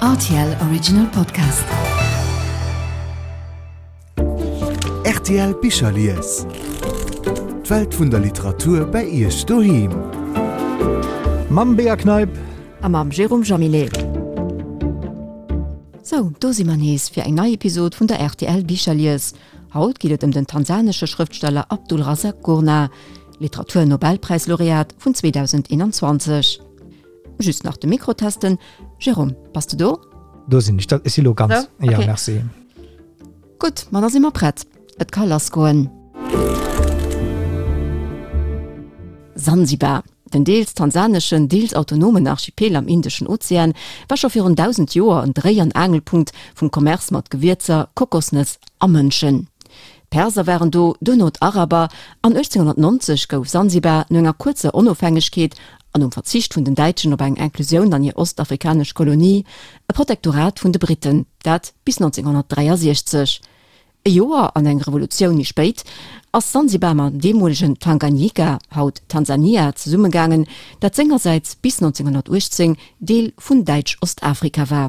Rtl Original Podcast. Rtl Bicherlies. D'Welt vun der Literatur bei Iech doheem. Mam Bea Kneip. A mam Jérôme Jaminet. Sou, do si mer nees fir eng nei Episod vun der rtl Bicherlies. Haut geet et ëm den tansanesche Schrëftsteller Abdulrazak Gurnah, Literatur-Nobelpräis-Laureat vun 2021. Just nach de Mikro testen. Jérôme, bass de do? Do sinn ech, dat ech si lo ganz. So, okay. Ja, merci. Gutt, ma da si mer prett. Et ka lass goen. Sansibar, den deels tansaneschen, deels autonomen Archipel am Indeschen Ozean, war scho virun 1.000 Joer en Dréi an Aangelpunkt vum Commerce mat Gewierzer, Kokosnëss a Mënschen. D'Perser waren do, duerno d'Araber, an 1890 gouf Sansibar no enger kuerzer Onofhängegkeet an nom Verzicht vun den Däitschen op eng Inclusioun an hir ostafrikanesch Kolonie, e Protektorat vun de Briten, dat bis 1963. E Joer an eng Revolutioun méi spéit ass Sansibar mam deemolegen Tanganyika, haut Tansania, zesummegaangen, dat sengersäits bis 1918 Deel vun Däitsch-Ostafrika war.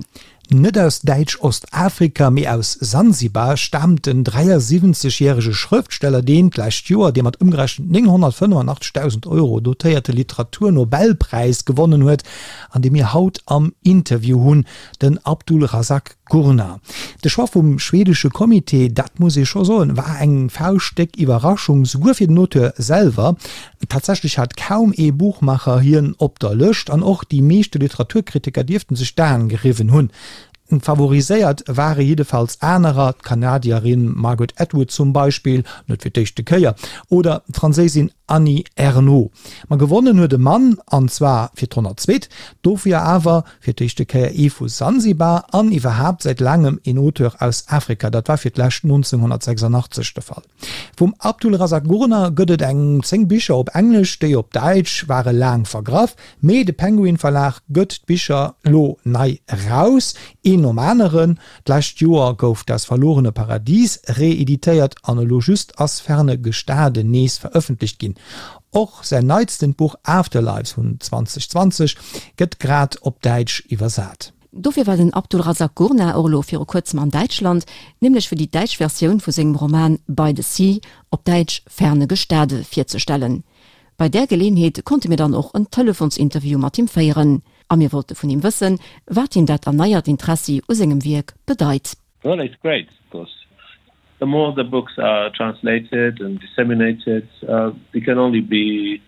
Net aus Däitsch-Ostafrika, mee aus Sansibar staamt den 73 järege Schrëftsteller, deen d'lescht Joer dee mat ëmgerechent 985.000 Euro dotéierte Literaturnobelpräis gewonnen huet an dee mir haut am Interview hunn, den Abdulrazak Gurnah. De Choix vum schwedesche Comité, dat muss ee scho soen, war eng fauschtdéck Iwwerraschung, souguer fir den Auteur selwer. Tatsächlech hat kaum ee Buchmacher hien op der Lëscht an och déi meeschte Literaturkritiker dierften sech d'Aen geriwwen hunn. Favoriséiert ware jiddefalls anerer, d'Kanadierin Margaret Atwood zum Beispill, net fir d'éischte Kéier, oder d'Franséisin Annie Ernaux. Ma gewonnen huet e Mann, an zwar fir d'honnertzweet, dofir awer fir d'éischte Kéier ee vu Sansibar an iwwerhaapt säit laangem een Auteur aus Afrika, dat war fir d'lescht 1986 de Fall. Vum Abdulrazak Gurnah gëtt et eng 10 Bicher op Englesch, déi op Däitsch ware laang vergraff, mee de Penguin Verlag gëtt d'Bicher lo nei eraus, een nom aneren. D'lescht Joer gouf Das verlorene Paradies reeditéiert an elo just ass Ferne Gestade nees verëffentlecht ginn. Och säin neitstent Buch Afterlives vun 2020 gëtt grad op Däitsch iwwersat. Dofir war den Abdulrazak Gurnah och elo viru kuerzem an Däitschland, nämlech fir déi däitsch Versioun vu sengem Roman By the Sea, op Däitsch Ferne Gestade, virzestellen. Bei där Geleeënheet konnte mir dann och en Telefonsinterview mat him féieren a mir wollte vun him wëssen, wat him dat erneiert Interessi u sengem Wierk bedeit. Well it's great, of course. The more the books are translated and disseminated, it can only be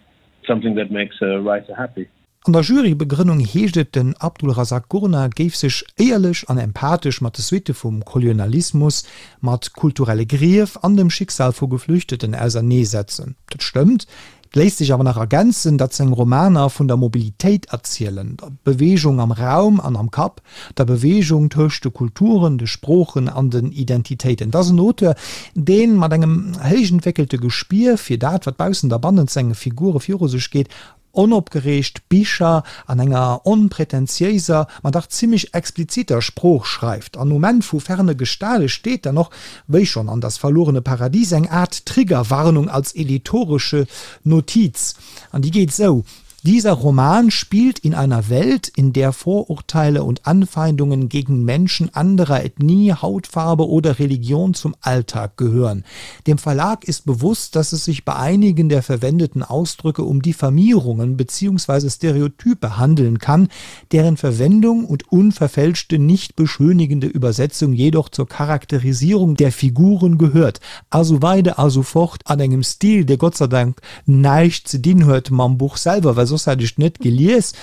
something that makes a writer happy. An der Jurybegrënnung heescht et, den Abdulrazak Gurnah géif sech éierlech an empathesch mat de Suitte vum Kolonialismus, mat kulturelle Grief an dem Schicksal vu Geflüchteten auserneesetzen. Dat stëmmt. Et léisst sech awer nach ergänzen, datt seng Romaner vun der Mobilitéit erzielen, der Beweegung am Raum an am Kapp, der Beweegung tëscht de Kulturen, de Sproochen an den Identitéiten. Et ass en Auteur, dee mat engem héich entwéckelte Gespier fir dat, wat baussent a bannent senge Figure viru sech geet, Onopgereegt Bicher an enger onpretentiéiser, ma dach zimmlech expliziter Sprooch schreift. An um Enn vu Ferne Gestale steet dann och, wéi schonn an Das verlorene Paradies, eng Aart Triggerwarnung als editoresche Notiz. An déi geet esou, Dieser Roman spielt in einer Welt, in der Vorurteile und Anfeindungen gegen Menschen anderer Ethnie, Hautfarbe oder Religion zum Alltag gehören. Dem Verlag ist bewusst, dass es sich bei einigen der verwendeten Ausdrücke um Diffamierungen bzw. Stereotype handeln kann, deren Verwendung und unverfälschte, nicht beschönigende Übersetzung jedoch zur Charakterisierung der Figuren gehört. A sou weider a sou fort, an engem Stil, dee Gott sei Dank näischt ze dinn huet mam Buch selwer, well soss hätt ech et net gelies.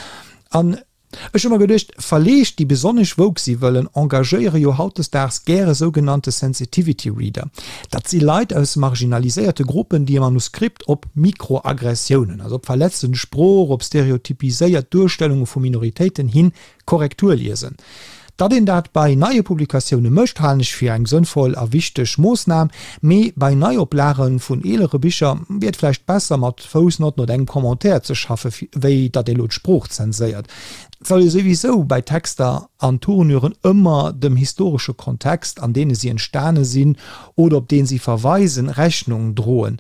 An Ech hu mer geduecht, Verleeg, déi besonnesch woke si wëllen, engagéiere jo hautdesdaags gäre sougenannte Sensitivity Reader. Dat si Leit aus marginaliséierte Gruppen, déi e Manuskript op Mikroaggressiounen, also op verletzend Sprooch, op stereotypiséiert Duerstellunge vu Minoritéiten hin Korrektur liesen. Datt een dat bei neie Publikatioune mécht, halen ech fir eng sënnvoll a wichteg Moossnam, mee bei Neioplage vun eelere Bicher wier et vläicht besser, mat Foussnotten oder engem Commentaire ze schaffe wéi datt ee lo d'Sprooch zenséiert. Et soll ee souwisou bei Texter an Tournuren ëmmer dem historesche Kontext, an deene si entstane sinn oder op dee si verweisen, Rechnung droen.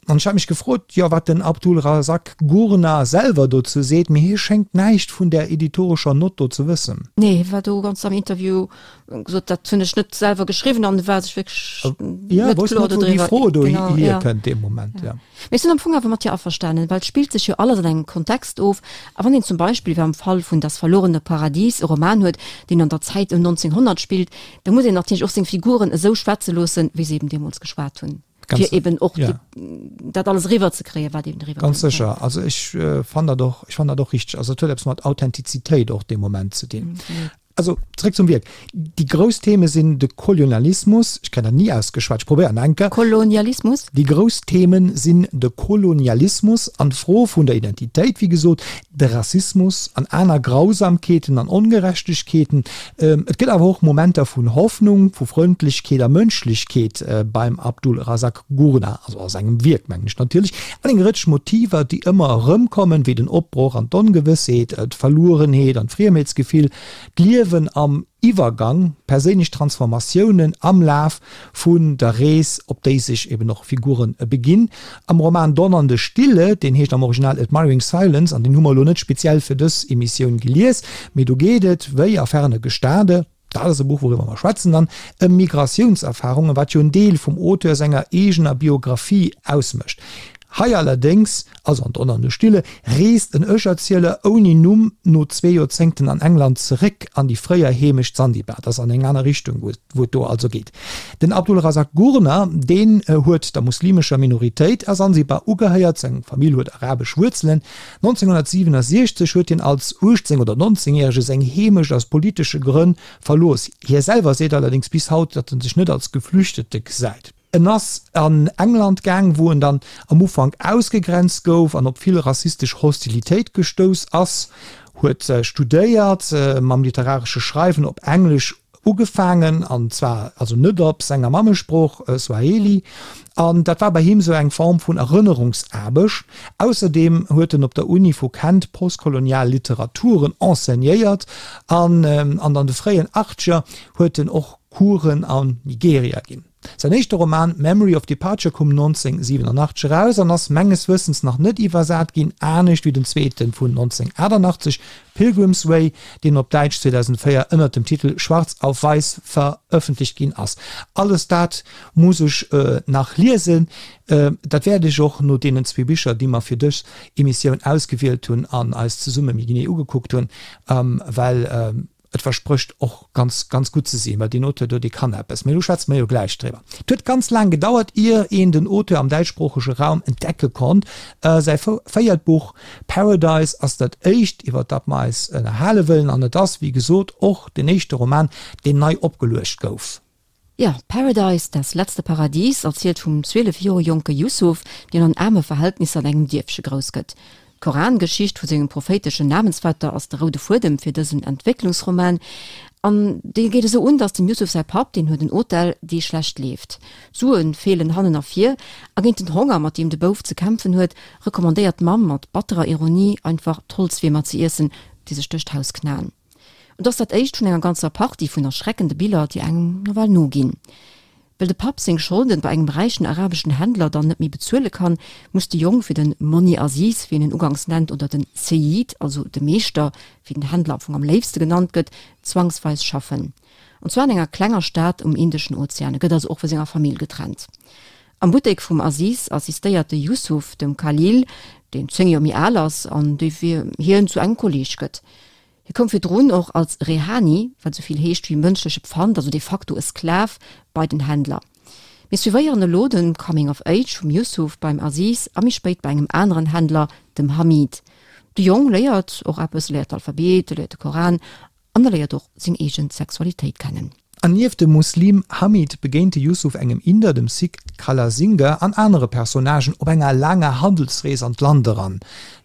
An ech hat mech gefrot, jo, wat den Abdulrazak Gurnah selwer dozou seet, mee hie schéngt näischt vun där editorescher Nott do ze wëssen. Nee, hie war do ganz am Interview, gesot, dat hunn ech net selwer geschriwwen an war sech wierklech net kloer dodriwwer. Déi Fro do hierkënnt dee Moment, jo. Mee ech sinn am Fong awer mat dir averstanen, well et spillt sech jo alles an engem Kontext of. A wann een zum Beispill, wéi am Fall vun Das verlorene Paradies, e Roman huet, deen an der Zäit ëm 1900 spillt, da muss een natierlech och seng Figuren esou schwätze loossen, wéi se eben deemools geschwat hunn. Ganz, fir eben och ja. die, dat alles riwwer ze kréien, wat eben riwwer Ganz sécher. Also ech äh, fand dat och, ech fand dat och richteg. Also et huet eppes mat Authentizitéit och dee Moment ze dinn. Mhm. Also zréck zum Wierk. Déi grouss Theme sinn de Kolonialismus, ech kréien dat ni ausgeschwat, ech probéieren eng Kéier. Kolonialismus? Déi grouss Themen sinn de Kolonialismus an d'Fro vun der Identitéit, wéi gesot, de Rassismus an aner Grausamkeeten an Ongerechtegkeeten. Et gëtt awer och Momenter vun Hoffnung, vu Frëndlechkeet a Mënschlechkeet beim Abdulrazak Gurnah, also a sengem Wierk mengen ech natierlech, an eng Rëtsch Motiver, déi ëmmer erëmkommen, wéi den Opbroch an d'Ongewëssheet, d'Verluerenheet an d'Friemheetsgefill, d'Liewen am Iwwergang, perséinlech Transformatiounen am Laf vun der Rees, op déi sech eben och Figuren beginn. Am Roman Donnernde Stille, deen heescht am Original Admiring Silence, an deen hu mer elo net speziell fir dës Emissioun gelies, mee do geet et, wéi a Ferne Gestade, dat ass e Buch, wouriwwer mer schwätzen dann, ëm Migratiounserfarungen, wat jo en Deel vum Auteur senger eegener Biographie ausmécht. Hei allerdéngs, also an Donnernde Stille, reest en Ech-Erzieler ouni Numm no zwee Joerzéngten an England zeréck an déi fréier Heemecht Sansibar. Dat ass an eng aner Richtung, wou et do also geet. Den Abdulrazak Gurnah, deen huet der muslimescher Minoritéit a Sansibar ugehéiert, seng Famill huet arabesch Wuerzelen. 1967 huet hien als 18 oder 19 Järege seng Heemecht aus politesche Grënn verlooss. Hie selwer seet allerdéngs bis haut, datt en sech net als Geflüchtete gesäit. En ass an England gaang, wou en dann am Ufank ausgegrenzt gouf an op vill rassistesch Hostilitéit gestouss ass, huet studéiert, mam literaresche Schreiwen op Englesch ugefaangen, an zwar also net op senger Mammesprooch Swahili, an dat war bei him sou eng Form vun Erënnerungsaarbecht. Ausserdeem huet en op der Uni vu Kent postkolonial Literaturen enseignéiert an an de fréien Achtzeger huet en och Coursen an Nigeria ginn. Säin éischte Roman Memory of Departure koum 1987 eraus an ass menges Wëssens nach net iwwersat ginn, anescht wéi den zweete vun 1988, Pilgrim's Way, deen op Däitsch 2004 ënnert dem Titel Schwarz auf Weiß verëffentlecht ginn ass. Alles dat muss ech nach liesen. Dat wäert ech och no deenen zwee Bicher, déi mer fir dës Emissioun ausgewielt hunn an eis zesumme méi genee ugekuckt hunn, well Et versprécht och ganz, ganz gutt ze sinn, well deen Auteur do, dee kann eppes. Mee do schwätze mer jo gläich driwwer. Et huet ganz laang gedauert, ier een den Auteur am däitschsproochege Raum entdecke konnt. Säi véiert Buch Paradise ass dat éischt, iwwer dat mer eis ënnerhale wëllen, an et ass, wéi gesot, och den éischte Roman, deen nei opgeluecht gouf. Jo, Paradise, Das letzte Paradies erzielt vum 12 Joer jonke Yusuf, deen an aarme Verhältnisser an engem Dierfche grouss gëtt. D'Korangeschicht vu sengem prophéiteschen Namensvetter ass de roude Fuedem fir dësen Entwécklungsroman. An dee geet esou un, datt dem Yusuf säi Papp, deen huet en Hotel, dee schlecht leeft. D'Sue feelen hannen a vir, a géint den Honger, mat deem de Bouf ze kämpfen huet, recommandéiert d'Mamm mat batterer Ironie einfach d'Holzwiermer ze iessen, déi sech duerch d'Haus knaen. Et ass dat éischt vun enger ganzer Partie vun erschreckende Biller, déi engem nawell noginn. Well de Papp seng Scholden bei engem räichen arabeschen Händler dann net méi bezuele kann, muss de Jong fir den Monni Aziz, wéi en en uganks nennt, oder den Seyid, also de Meeschter, wéi den Händler am Fong am léifste genannt gëtt, zwangsweis schaffen. An zwar an enger klenger Stad um Indeschen Ozean. E gëtt also och vu senger Famill getrennt. Am Buttek vum Aziz assistéiert de Yusuf dem Khalil, deen 10 Joer méi al ass an dee fir hien zu engem Kolleeg gëtt. Hie koum virdrun och als Rehani, wat esou vill heescht wéi mënschleche Pfand, also de facto e Sklav, bei den Händler. Mir suivéieren elo de Coming of Age vum Yusuf beim Aziz a méi spéit bei engem aneren Händler, dem Hamid. De Jong léiert och eppes, e léiert d'Alphabet, e léiert de Koran an e léiert och seng eege Sexualitéit kennen. An nieft dem Muslim Hamid begéint de Yusuf engem Inder, dem Sikh Kalasinga an anere Personnagen op enger laanger Handelsrees an d'Land eran.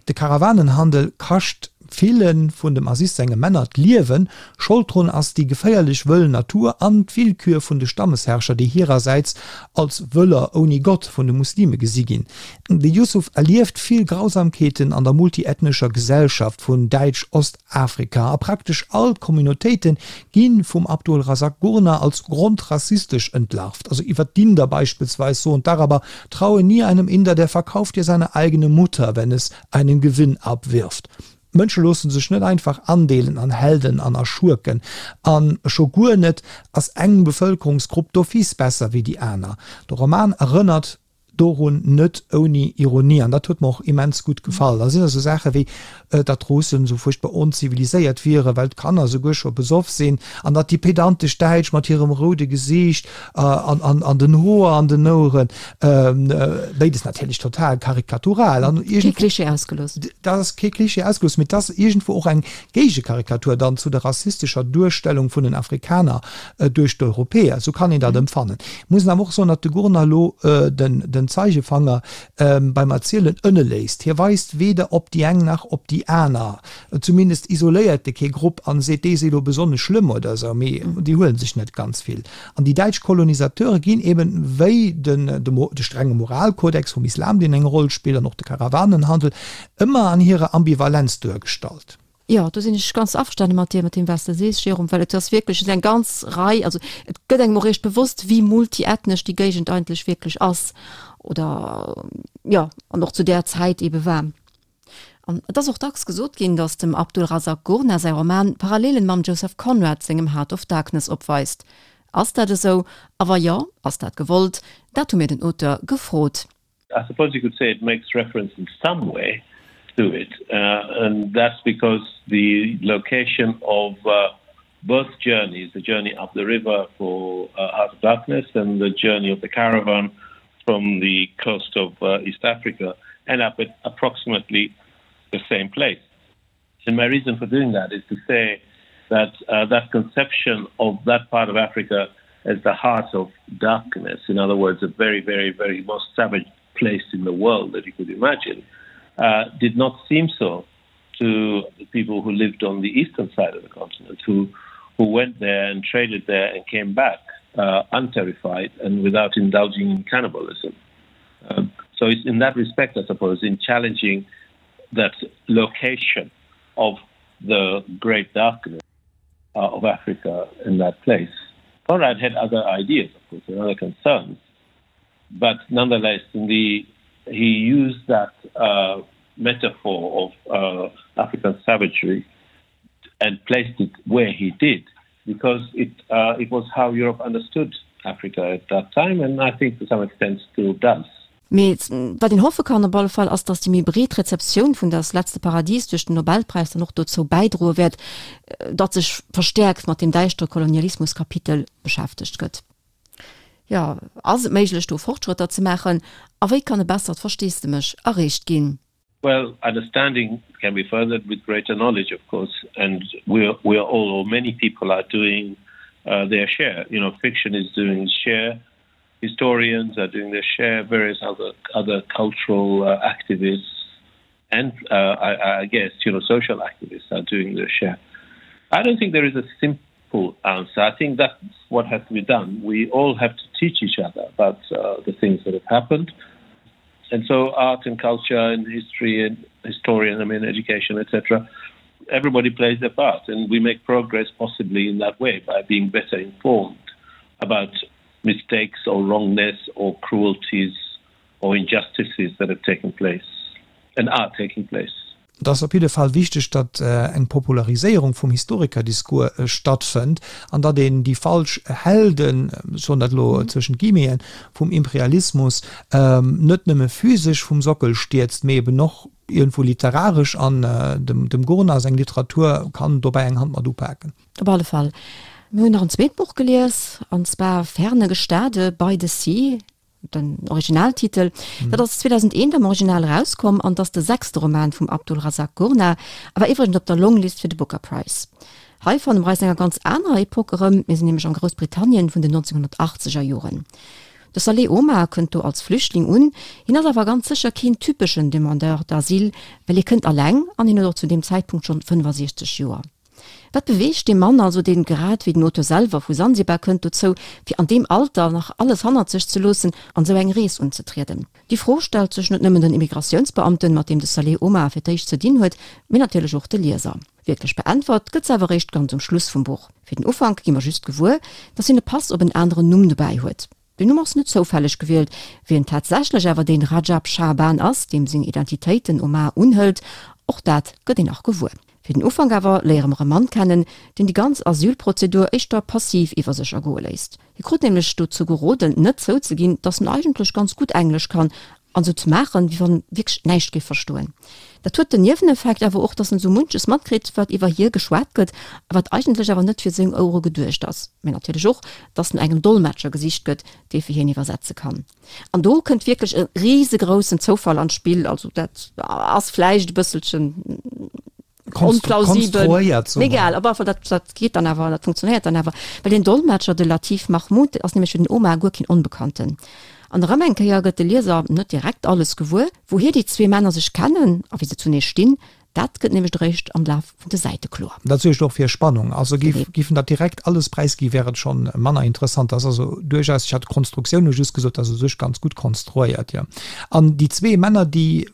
De Karawanenhandel kascht. Ville vun dem Aziz senge Männer d'Liewen. Schold drun ass déi geféierlech wëll Natur an d'Willkür vun de Stammesherrscher, déi hirersäits als Wëller ouni Gott vun de Muslime gesi ginn. De Yusuf erlieft vill Grausamkeeten an der multiethnescher Gesellschaft vun Däitsch-Ostafrika a praktesch all d'Communautéite gi vum Abdul Razak Gurnah als grondrassistesch entlarvt. Also iwwer d'Inder beispillsweis soen d'Araber, Traue nie einem Inder, der verkauft dir seine eigene Mutter, wenn es einen Gewinn abwirft. D'Mënsche loosse sech net einfach andeelen an Helden an a Schurken. A scho guer net ass eng Bevëlkerungsgrupp d'office besser wéi déi aner. De Roman erënnert dorun net ouni Ironie an dat huet mer och immens gutt gefall. Da sinn esou Saache wéi, datt d'Russen esou fuerchtbar onziviliséiert wieren, well d'Kanner esouguer scho besoff sinn an datt déi pedantesch Däitsch mat hirem roude Gesiicht an den Hoer an den Oueren, béides natierlech total karikatural an Kee Klischee ausgelooss. Dat ass kee Klischee ausgelooss, mee et ass iergendwou och eng Géigekarikatur dann zu der rassistescher Duerstellung vun den Afrikaner duerch d'Europäer. Esou kann een dat empfannen. Ech muss awer och soen, datt de Gurnah elo den Zeigefanger beim Erzielen ënne léisst. Hie weist weder op déi eng nach op déi aner. Zumindest isoléiert e kee Grupp an seet, déi si elo besonnesch schlëmm oder esou, mee déi huele sech net ganz vill. An déi däitsch Kolonisateure ginn eben, wéi de strenge Moralkodex vum Islam, deen eng Roll spillt, an och de Karawanenhandel, ëmmer an hirer Ambivalenz duergestallt. Jo, do sinn ech ganz averstane mat dir, mat deem wat s de sees, Jérôme, well et ass wierklech, et ass eng ganz Rei, also et gëtt engem och eréischt bewosst, wéi multiethnesch déi Géigend eigentlech wierklech ass oder, jo, an och zu där Zäit eebe war. An et ass och dacks gesot ginn, datt dem Abdulrazak Gurnah säi Roman Parallelen mam Joseph Conrad sengem Heart of Darkness opweist. Ass dat esou? A wa jo, ass dat gewollt? Dat hu mir den Auteur gefrot. I suppose you could say it makes reference in some way to it uh, and that's because the location of uh, both journeys the journey up the river for uh, Heart of Darkness and the journey of the caravan from the coast of uh, East Africa end up at approximately the same place. And my reason for doing that is to say that uh, that conception of that part of Africa as the heart of darkness, in other words, a very, very, very most savage place in the world that you could imagine, uh, did not seem so to the people who lived on the eastern side of the continent, who, who went there and traded there and came back uh, unterrified and without indulging in cannibalism. Um, so it's in that respect, I suppose, in challenging that location of the great darkness uh, of Africa in that place. Conrad had other ideas, of course, and other concerns, but nonetheless, in the, he used that uh, metaphor of uh, African savagery and placed it where he did because it, uh, it was how Europe understood Africa at that time, and I think to some extent still does. Mee wat een hoffe kann op alle Fall, ass, datt déi méi breet Rezeptioun vun Das letzte Paradies duerch den Nobelpräis dann och dozou bäidroe wäert, datt sech verstäerkt mat deem däischtere Kolonialismus-Kapitel beschäftegt gëtt. Jo, ass et méiglech do Fortschrëtter ze maachen a wéi kann e bessert Versteesdemech erreecht ginn? Well, understanding can be furthered with greater knowledge, of course, and we are, we are all, or many people are doing uh, their share. You know, fiction is doing its share, historians are doing their share, various other, other cultural uh, activists and, uh, I, I guess, you know, social activists are doing their share. I don't think there is a simple answer. I think that's what has to be done. We all have to teach each other about uh, the things that have happened. And so art and culture and history and historian, I mean, education, etc., everybody plays their part and we make progress possibly in that way by being better informed about mistakes or wrongness or cruelties or injustices that have taken place and are taking place. Et ass op jidde Fall wichteg, datt eng Populariséierung vum Historikerdiscours stattfënnt an datt een déi falsch Helden, ech soen dat elo zwëschent Guillemeten, vum Imperialismus net nëmme physesch vum Sockel stierzt, mee eben och iergendwou literaresch. An dem Gurnah seng Literatur kann dobäi eng Hand mat upaken. Op alle Fall. Mir hunn nach en zweet Buch gelies, an zwar Ferne Gestade, By the Sea. Den Originaltitel. Dat ass 2001 am Original erauskomm an ass de sechste Roman vum Abdulrazak Gurnah a war iwwregens op der Longlist fir de Booker Prize. Hei fanne mer eis an enger ganz anerer Epoque erëm, mir sinn nämlech am Groussbritannien vun den 1980er Joren. De Saleh Omar kënnt do als Flüchtling un, hien ass awer ganz sécher keen typeschen Demandeur d'asile, well hie kënnt alleng an hien huet och zu deem Zäitpunkt schonn 65 Joer. Wat beweegt dee Mann also, deen grad wéi den Auteur selwer vu Sansibar kënnt, dozou, fir an deem Alter nach alles hannert sech ze loossen an esou eng Rees unzetrieden? Déi Fro stellt sech net nëmmen den Immigratiounsbeamten, mat deem de Saleh Omar fir d'éischt ze dinn huet, mee natierlech och de Lieser. Wierklech beäntwert gëtt se awer eréischt ganz um Schluss vum Buch. Fir den Ufank gi mer just gewuer, dass hien e Pass op en aneren Numm dobäi huet. Den Numm ass net zoufälleg gewielt. Wien tatsächlech awer dee Rajab Shaaban ass, deem seng Identitéit den Omar unhëlt, och dat gëtt een nach gewuer. Fir den Ufank awer léiere mer e Mann kennen, deen déi ganz Asylprozedur éischter passiv iwwer sech ergoe léisst. Hie krut nämlech dozou geroden, net zouzeginn, datt en eigentlech ganz gutt Englesch kann an esou ze maachen, wéi wann en wierklech näischt géif verstoen. Dat huet den Nieweneffekt awer och, datt en esou munches matkritt, wat iwwer hie geschwat gëtt a wat eigentlech awer net fir seng Ouere geduecht ass. Mä natierlech och, datt no engem Dolmetscher gesicht gëtt, dee fir hien iwwersetze kann. An do kënnt wierklech e risegroussen Zoufall an d'Spill. Also dat ass vläicht e bësselchen onplausibel. Mee egal, op alle Fall, dat, dat geet dann awer, dat funktionéiert dann awer. Well deen Dolmetscher, de Latif Mahmoud, ass nämlech fir den Omar guer keen Onbekannten. An erëm eng Kéier gëtt de Lieser net direkt alles gewuer, wouhier déi zwee Männer sech kennen a wéi se zunee stinn. Dat gëtt nämlech eréischt am Laf vun de Säite kloer. Dat suergt och fir Spannung. Also géif géif en dat direkt alles präisgi wär et schonn manner interessant. Dat ass also duerchaus, ech hat d'Konstruktioun hu just gesot, dat ass u sech ganz gutt konstruéiert, jo. An déi zwee Männer, déi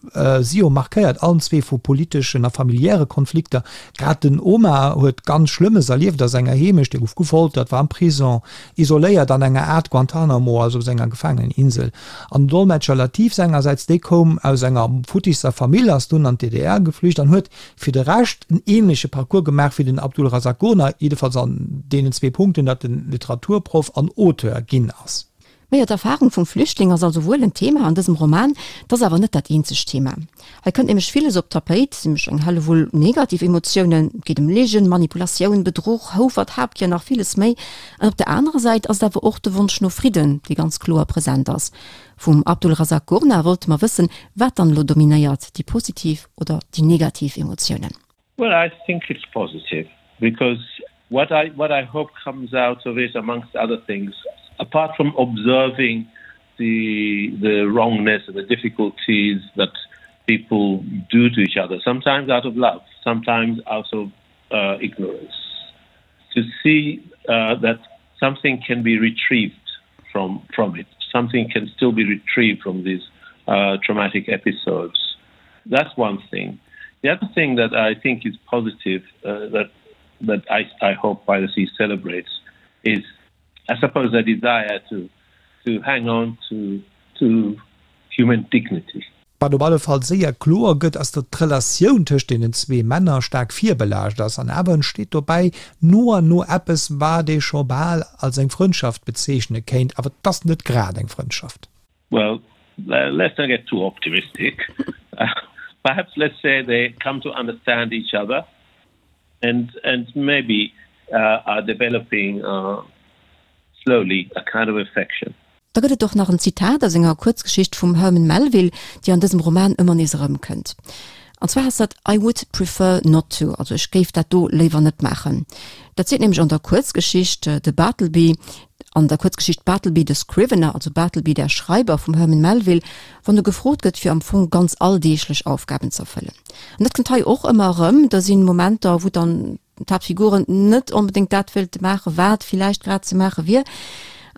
si jo markéiert, allen zwee vu politeschen a familiäre Konflikter. Grad den Omar huet ganz Schlëmmes erlieft a senger Heemecht, e gouf gefoltert, war am Prison, isoléiert an enger Aart Guantanamo, also op senger Gefaangeneninsel. An den Dolmetscher Latif sengersäits, dee koum aus enger futtisser Famill, ass dunn an d'DDR geflücht an huet fir de Rescht en ähnleche Parcours gemaach wéi den Abdulrazak Gurnah, jiddefalls an deenen zwee Punkten, datt en Literaturproff an Auteur ginn ass. Majo, d'Erfahrung vum Flüchtling ass also wuel en Thema an dësem Roman, 't ass awer net dat eenzegt Thema. Hei kënnt nämlech villes op d'Tapéit, nämlech eng Hellewull negativ Emotiounen, et geet ëm Ligen, Manipulatioun, Bedruch, Houfert, Habgier an nach villes méi. An op der anerer Säit ass et awer och de Wonsch no Fridden, dee ganz kloer present ass. Vum Abdulrazak Gurnah wollte mer wëssen, wat dann elo dominéiert, déi positiv oder déi negativ Emotiounen. Well I think it's positive because what I what I hope comes out of it amongst other things apart from observing the the wrongness and the difficulties that people do to each other sometimes out of love sometimes out of uh, ignorance to see uh, that something can be retrieved from from it something can still be retrieved from these uh, traumatic episodes that's one thing the other thing that I think is positive uh, that that I, I hope by the sea celebrates is I suppose a desire to to hang on to to human dignity. Wat op alle Fall séier kloer gëtt, ass, datt d'Relatioun tëscht deenen zwee Männer staark virbelaascht ass. An awer entsteet dobäi no an no eppes, wat ee scho bal als eng Frëndschaft bezeechne kéint. Awer et ass net grad eng Frëndschaft. Well, let's not get too optimistic. Perhaps let's say they come to understand each other and and maybe uh, are developing uh, slowly a kind of affection. Da gëtt et och nach en Zitat aus enger Kuerzgeschicht vum Herman Melville, déi an dësem Roman ëmmer nees erëmkënnt. An zwar ass dat I would prefer not to, also ech géif dat do léiwer net maachen. Dat seet nämlech an der Kuerzgeschicht de Bartleby, an der Kuerzgeschicht Bartleby the Scrivener, also Bartleby der Schreiber vum Herman Melville, wann e gefrot gëtt fir am Fong ganz alldeeglech Aufgaben z'erfëllen. An dat kënnt hei och ëmmer erëm, da sinn Momenter, wou dann d'Haaptfiguren net onbedéngt dat wéilte maachen, wat villäicht grad ze maache wier,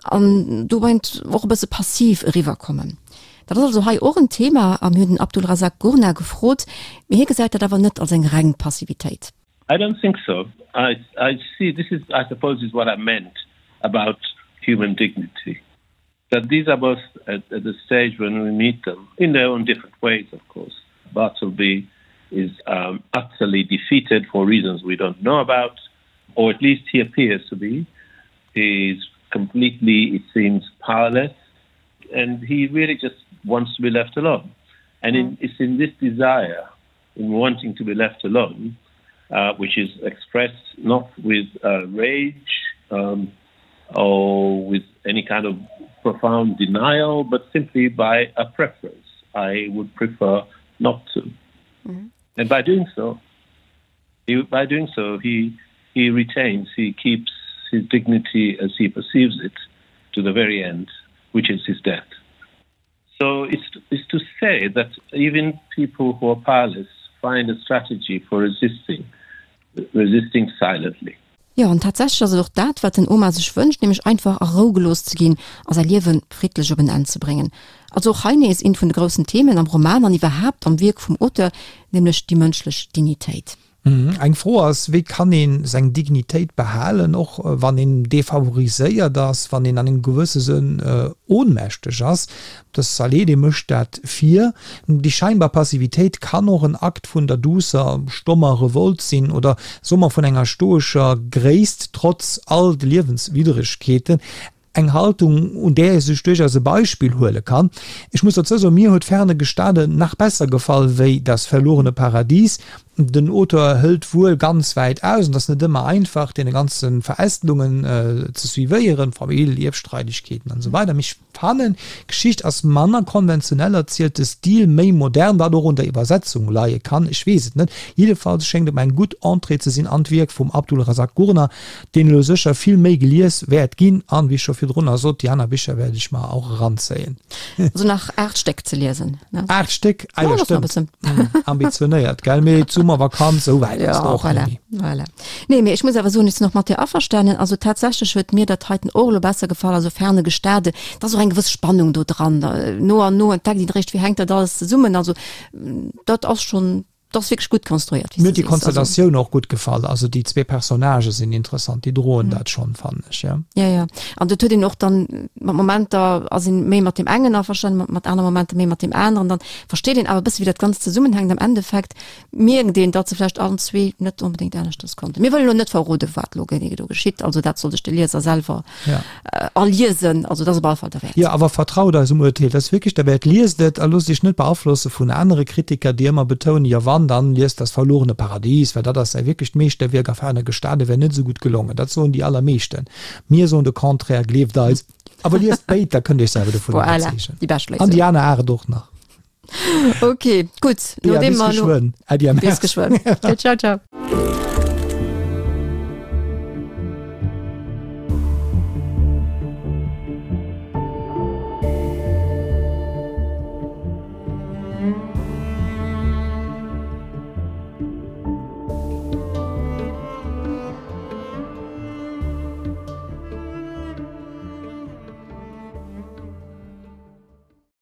an dobäi och e bësse passiv eriwwerkommen. Dat ass also hei och en Thema a mir hunn den Abdulrazak Gurnah gefrot, mee hie gesäit dat awer net als eng reng Passivitéit. I don't think so. I, I see this is I suppose is what I meant about human dignity. That these are both at, at the stage when we meet them in their own different ways, of course. Bartleby is um, utterly defeated for reasons we don't know about, or at least he appears to be. He's completely, it seems, powerless, and he really just wants to be left alone. And in, it's in this desire, in wanting to be left alone, uh, which is expressed not with uh, rage um, or with any kind of profound denial, but simply by a preference. I would prefer not to. Mm -hmm. And by doing so, he, by doing so, he, he retains, he keeps his dignity as he perceives it to the very end. which is his death. So it's, it's to say that even people who are powerless find a strategy for resisting, resisting silently. Jo, an tatsächlech ass et och dat, wat den Omar sech wënscht, nämlech einfach a Rou gelooss ze ginn a säi Liewe friddlech op en Enn ze bréngen. Also och hei nees eent vun de groussen Themen am Roman an iwwerhaapt am Wierk vum Auteur, nämlech déi mënschlech Dignitéit. Eng Fro ass, wéi kann ee seng Dignitéit behalen, och wann een defavoriséiert ass, wann een an engem gewësse Sënn ohnmächteg ass? De Saleh, dee mécht dat vir. Déi scheinbar Passivitéit kann och en Akt vun der duusser, stommer Revolt sinn oder soe mer vun enger stoescher Gréisst, trotz all de Liewenswidderegkeeten. Eng Haltung, un där ee sech duerchaus e Beispill huele kann. Ech muss dozou soen, mir huet Ferne Gestade nach besser gefall wéi Das verlorene Paradies. Den Auteur hëlt wuel ganz wäit aus, an et ass net ëmmer einfach, deene ganze Verästelungen ze suivéieren, Famill, Ierfstreidegkeeten an esou weider, mee ech fannen, d'Geschicht ass manner konventionell erzielt, de Stil méi modern, wat och un der Iwwersetzung leie kann, ech weess et net. Jiddefalls schéngt et mer eng gutt Entrée ze sinn an d'Wierk vum Abdulrazak Gurnah, deen elo sécher vill méi gelies wäert ginn an, wéi ech scho virdrunner sot, déi aner Bicher wäert ech mer och eranzéien. Also nach 8 Stéck ze liesen, ne? 8 Stéck? Ah jo, stëmmt. Ambitionéiert, gell? Mee d'Summervakanz, esou wäit ass et och net méi. Voilà, voilà. Nee, mee ech muss awer soen, ech sinn och mat dir averstanen. Also tatsächlech huet mir dat heiten och elo besser gefall, also Ferne Gestade. Et ass och eng gewëss Spannung do dran. No an no entdeckt een eréischt, wéi hänkt dat alles zesummen. Also dat ass schonn. Dat ass wierklech gutt konstruéiert, wéi s Mir huet du déi sees. Also. Konstellatioun och gutt gefall. Also déi zwee Personnagë sinn interessant, déi droen dat schonn, fannen ech, jo. Ja, ja. An dat huet een och dann, mat Momenter ass een méi mat deem engen averstanen, mat, mat anere Momenter méi mat deem aneren. Dann versteet een awer e bësse wéi dat Ganzt zesummenhänkt. Am Endeffekt mierkt een, datt se vläicht allen zwee net onbedéngt aneschters konnten. Mir wëllen elo net verroden, wat elo genee do geschitt. Also dat soll sech de Lieser selwer Ja. erliesen. Also dat ass op alle Fall derwäert. Jo, awer vertraut eisem Urteel, dat ass wierklech derwäert. Liest et a loosst iech net beaflosse vun anere Kritiker, déi ëmmer betounen, jo wann, dann liest Das verlorene Paradies, well dat ass säi wierklecht Meeschterwierk a Ferne Gestade wär net esou gutt gelongen. Dat soen déi allermeeschten. Mir soen de Contraire, gleeft eis. Awer liest béid, da kënnt iech selwer dovun Voilà, iwwerzeegen. déi bescht An déi Léisung. aner 8 och nach. Ok, gutt. Bea, Nodeem bis mer elo. geschwënn. Äddi a Bis merci. geschwënn. Ciao, ciao.